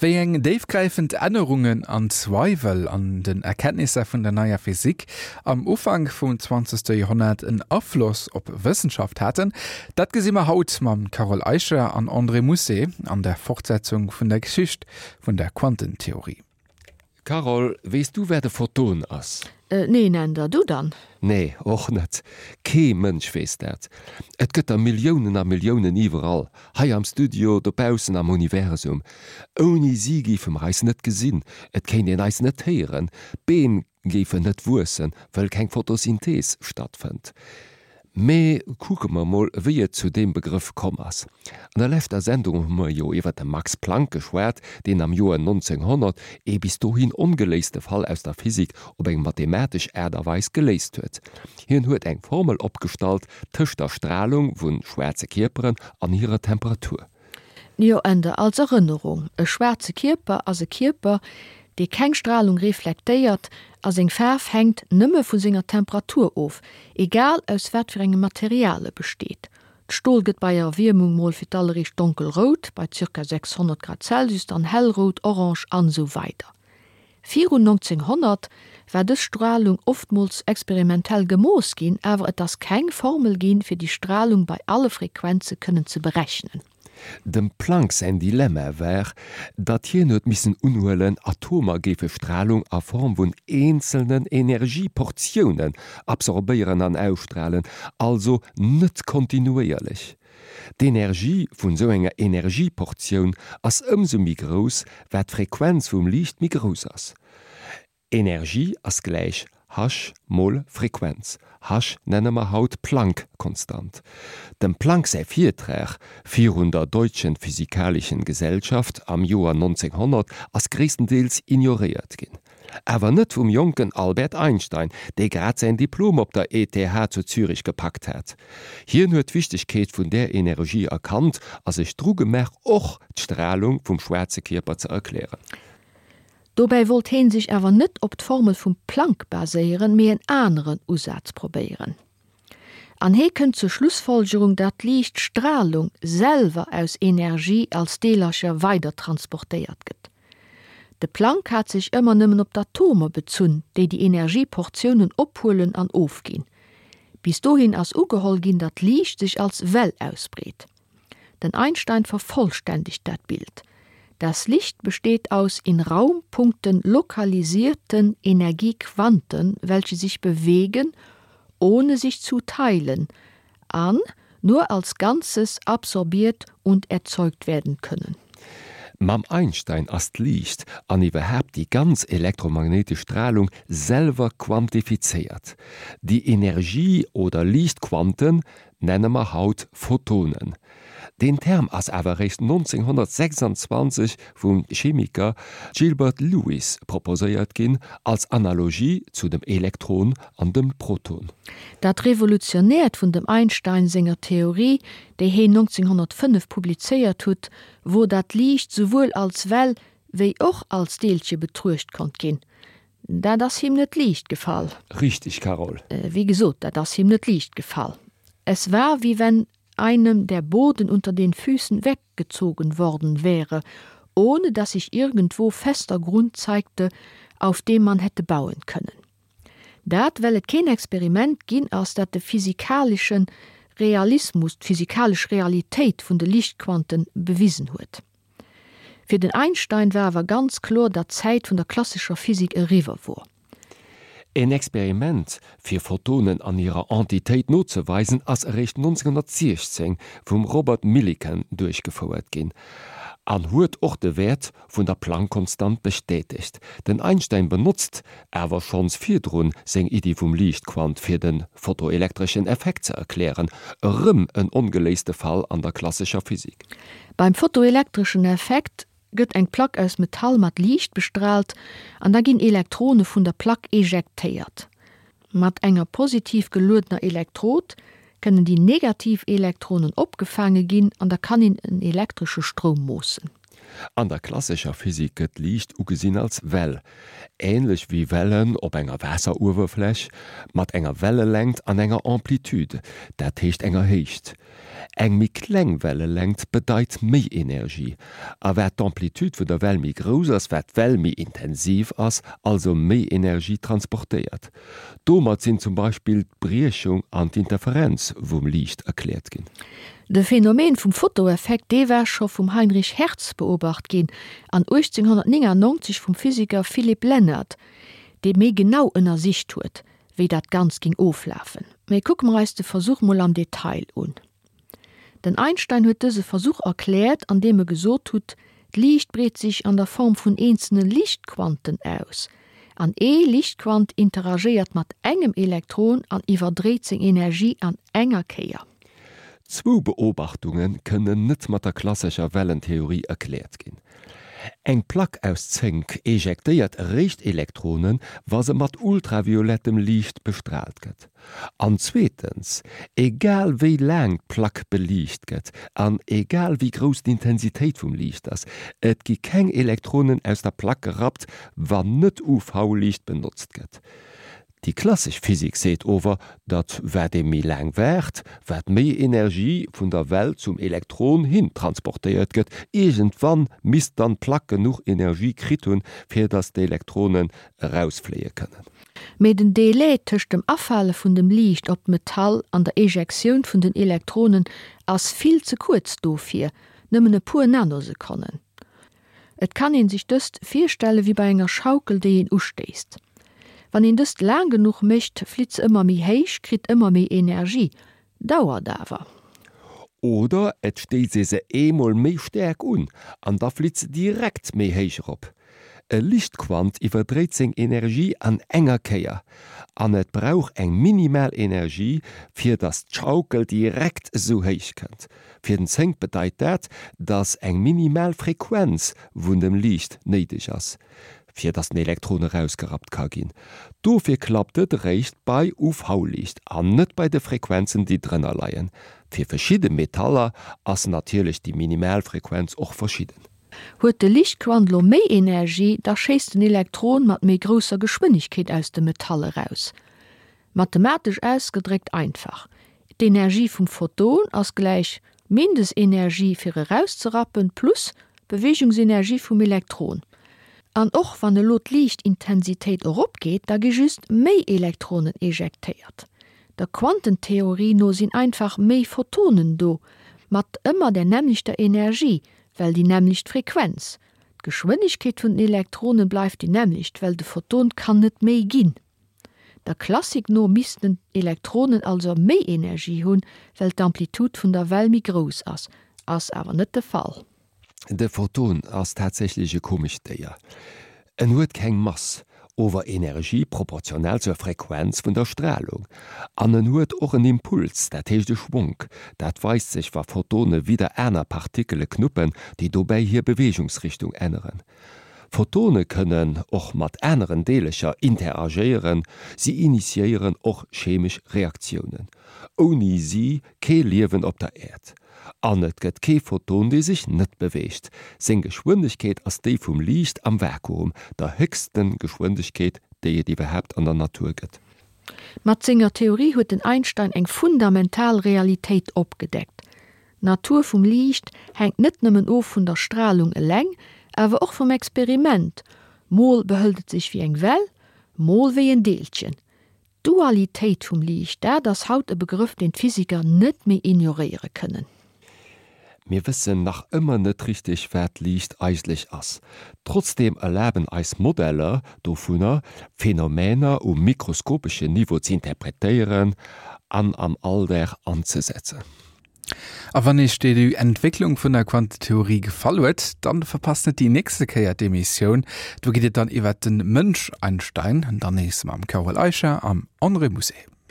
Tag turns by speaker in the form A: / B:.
A: Wéi eng déifgräifend Ännerungen an Zweiwel an den Erkenntnisser vun der neier Physik am Ufank vum zwanzegste Joerhonnert en Afloss op Wëssenschaft haten, dat gesi mer haut mam Carole Eicher an André Mousset an der Fortsetzung vun der Geschicht vun der Quantentheorie.
B: Carole, weess du wat e Photon ass?
C: Neen, Änder, du dann?
B: Nee, och net. Kee Mënsch weess dat. Et gëtt der Milliounen a Milliounen iwwerall, hei am Studio, dobaussen am Universum. Ouni si géife mer eis net gesinn, et kéint een eis net héieren, d'Beem géifen net wuessen, wëll keng Photosynthees stattfënnt. Mee kucke mer mol, wéi et zu deem Begrëff komm ass. An der leschter Sendung hu mer jo iwwer de Max Planck geschwat, deen am Joer 1900 ee bis dohin ongeléiste Fall aus der Physik op eng mathematesch Aart a Weis geléist huet. Hien huet eng Formel opgestallt tëscht der Stralung vu schwaarze Kierperen an hirer Temperatur.
C: Jo, Änder, als Erënnerung, E schwaarze Kierper ass e Kierper, dee keng Stralung reflektéiert a seng Faarf hänkt nëmme vu senger Temperatur of, egal aus wat fir engem Material e besteet. D'Stol gëtt bei Erwiermung mol fir d'alleréischt donkelrout, bei ca. 600 Grad Celsius dann hellrout, orange an esou weider Virun 1900 war dës Stralung oftmools experimentell gemooss ginn, awer et ass keng Formel ginn, fir déi Stralung bei alle Frequenze kënnen ze berechnen.
B: Dem Planck säin Dilemma war, datt hien huet missen unhuelen, Atomer géife Stralung a Form vun eenzelnen Energieportiounen absorbéieren an ausstralen, also net kontinuéierlech. D'Energie vun sou enger Energieportioun ass ëmsou méi grouss, wat d'Frequenz vum Liicht méi grouss ass. Energie ass gläich h mol Frequenz. H nenne mer haut Planck-Konstant. Dem Planck säi Virtrag virun der Deutschen Physikalischen Gesellschaft am Joer 1900 ass gréisstendeels ignoréiert ginn. Awer net vum jonken Albert Einstein, dee grad säin Diplom op der ETH zu Zürich gepackt hat. Hien huet d'Wichtegkeet vun där Energie erkannt a sech dru gemaach och d'Stralung vum schwaarze Kierper ze erklären.
C: Dobäi wollt heen sech awer net op d'Formel vum Planck baséieren, mee en aneren Usaz probéieren. An hee kënnt zur Schlussfolgerung, datt d'Liichtstralung selwer aus Energie als Deelercher weider transportéiert gëtt. De Planck hat sech ëmmer nëmmen op d'Atomer bezunn, déi déi Energieportiounen ophuelen an ofginn. Bis dohin ass ugeholl ginn, datt Liicht sech als Well ausbreet. Den Einstein vervollständegt dat Bild. Das Licht besteht aus in Raumpunkten lokalisierten Energiequanten, welche sich bewegen, ohne sich zu teilen, an nur als Ganzes absorbiert und erzeugt werden können.
B: Mam Einstein ass d'Liicht, an iwwerhaapt déi ganz elektromagnéitesch Stralung, selwer quantifizéiert. Déi Energie oder Liichtquanten nenne mer haut Photonen. Deen Term ass awer eréischt 1926 vum Chemiker Gilbert Lewis proposéiert ginn, als Analogie zu dem Elektron an dem Proton.
C: Dat Revolutionäert vun dem Einstein senger Theorie, déi heen 1905 publizéiert hutt, wor dat Liicht souwuel als Well wéi och als Deelche betruecht konnt ginn. Dat ass him net liicht gefall.
B: Richtig, Carole.
C: Wéi gesot, dat ass him net liicht gefall. Es war, wie wenn einem der Boden unter den Füßen weggezogen worden wäre, ohne dass sich irgendwo fester Grund zeigte, auf dem man hätte bauen können. Dat, well et keen Experiment ginn ass, dat de physikaleschen Realismus, d'physikalesch Realitéit vun de Liichtquanten bewisen huet. Fir den Einstein war awer ganz kloer, datt d'Zäit vun der klassescher Physik eriwwer wor.
B: En Experiment, fir Photonen an hirer Entitéit nozeweisen, ass eréischt 1916 vum Robert Millikan duerchgefouert ginn an huet och de Wäert vun der Planck-Konstant bestätegt. Den Einstein benotzt awer schonns virdrun seng Iddi vum Liichtquant fir de photoelektreschen Effekt ze erklären, erëm en ongeléiste Fall an der klassescher Physik.
C: Beim photoelektreschen Effekt gëtt eng Plack aus Metall mat Liicht bestraalt an da ginn Elektrone vun der Plack ejektéiert. Mat enger positiv geluedener Elektrod kënnen déi negativ Elektronen opgefaange ginn an da kann een en elektresche Stroum moossen.
B: An der klassescher Physik gëtt Liicht ugesinn als Well, änlech wéi Wellen op enger Waasseruewerfläch, mat enger Wellelängt an enger Amplitude, dat heescht enger Héicht. Eng méi kleng Wellelängt bedeit méi Energie, a wat d'Amplitude vun der Well méi grouss ass, wat d'Well méi intensiv ass, also méi Energie transportéiert. Domat sinn zum Beispill d'Briechung an d'Interferenz vum Liicht erkläert ginn.
C: De Phänomen vum Fotoeffekt, dee war scho vum Heinrich Hertz beobacht ginn an 1899 vum Physiker Philipp Lenard, dee méi genau ënnersicht huet, wéi dat Ganzt ging oflafen. Mee kucke mer eis de Versuch mol am Detail un. Den Einstein huet dëse Versuch erkläert, an deem e gesot hutt, D'Liicht breet sech an der Form vun eenzelne Liichtquanten aus, an ee Liichtquant interagéiert mat engem Elektron an iwwerdréit seng Energie an enger Kéier.
B: Zwou Beobachtunge kënnen net mat der klassescher Wellentheorie erkläert ginn. Eng Plack aus Zénk ejektéiert eréischt Elektronen, wa se mat ultraviolettem Liicht bestraalt gëtt. An zweetens, egal wéi laang d'Plack beliicht gëtt an egal wéi grouss d'Intensitéit vum Liicht ass, et gi keng Elektronen aus der Plack gerappt, wann net UV-Liicht benotzt gëtt. Déi klassesch Physik seet ower, datt wat ee méi laang waart, wat méi Energie vun der Well zum Elektron hin transportéiert gëtt. Iergendwann misst dann d'Plack genuch Energie kritt hunn, fir datt d'Elektronen erausfléie kënnen.
C: Mee den Délai tëscht dem Afale vun dem Liicht op d'Metall an der Ejektioun vun den Elektronen ass vill ze kuerz dofir, nëmmen e puer Nanosekonnen. Et kann een sech dëst virstelle wéi bei enger Schaukel déi een ustéisst. Wann een dëst laang genuch mécht, flitt se ëmmer méi héich, kritt ëmmer méi Energie, Dauert awer.
B: Oder et stéisst ee se eemol méi staark un an da flitt se direkt méi héich erop. E Lichtquant iwwerdréit seng Energie an enger Kéier an et brauch eng minimal Energie fir dass d'Schaukel direkt esou héich kënnt. Fir den Zénk bedeit dat, dass eng minimal Frequenz vun dem Liicht néideg ass. fir dass den Elektron erausgerappt ka ginn. Dofir klappt et eréischt bei UV-Liicht an net bei de Frequenzen déi drënner leien. Fir verschidde Metaller ass natierlech déi minimal Frequenz och verschidden.
C: Huet de Liichtquant lo méi Energie, da schéisst den Elektron mat méi grousser Geschwënnegkeet aus dem Metall eraus. Mathematesch ausgedréckt einfach, D'Energie vum Photon ass gläich Mindestenergie fir erauszerappen plus Beweegungsenergie vum Elektron. An och wann elo d'Liichtintensitéit eropgeet, da gi just méi Elektronen ejektéiert. Der Quantentheorie no sinn einfach méi Photonen do, mat ëmmer der nämmlechter Energie, well déi nämmlecht Frequenz. D'Geschwënnegkeet vun den Elektronen bleift déi nämmlecht, well de Photon kann net méi ginn. Der Klassik no missten d'Elektronen also méi Energie hunn, well d'Amplitude vun der Well méi grouss ass. Ass awer net de Fall.
B: De Photon ass tatsächlech e komescht Déier. En huet keng Mass, ower Energie proportional zur Frequenz vun der Stralung. An en huet och en Impuls, dat heescht e Schwonk. Dat weist sech wa Photone widder aner Partikele knuppen, déi dobäi hir Beweegungsrichtung änneren. Photone kënnen och mat aneren Deelecher interagéieren, si initiéieren och chemesch Reaktiounen. Ouni si kee Liewen op der Äerd. An et gëtt kee Photon, dee sech net beweegt. Seng Geschwëndegkeet ass déi vum Liicht am Vakuum, der héchste Geschwëndegkeet, déi et iwwerhaapt an der Natur gëtt.
C: Mat senger Theorie huet den Einstein eng fundamental Realitéit opgedeckt, D'Natur vum Liicht hänkt net nëmmen of vun der Stralung eleng, awer och vum Experiment, mol behëlt et sech wéi eng Well, mol wéi en Deelchen. D'Dualitéit vum Liicht, dat ass haut e Begrëff, deen d'Physiker net méi ignoréiere kënnen.
B: Mir wëssen nach ëmmer net richteg, wat Liicht eigentlech ass. Trotzdeem erlaben eis Modeller dovunner, Phänomener um mikroskopeschen Niveau z'interpretéieren an am Alldag anzesetzen.
A: A wann Iech déi Entwécklung vun der Quantentheorie gefall huet, dann verpasst net déi nächste Kéier d'Emissioun. Do geet et dann iwwert den Mënsch Einstein, dann nees mam Carole Eicher am André Musset.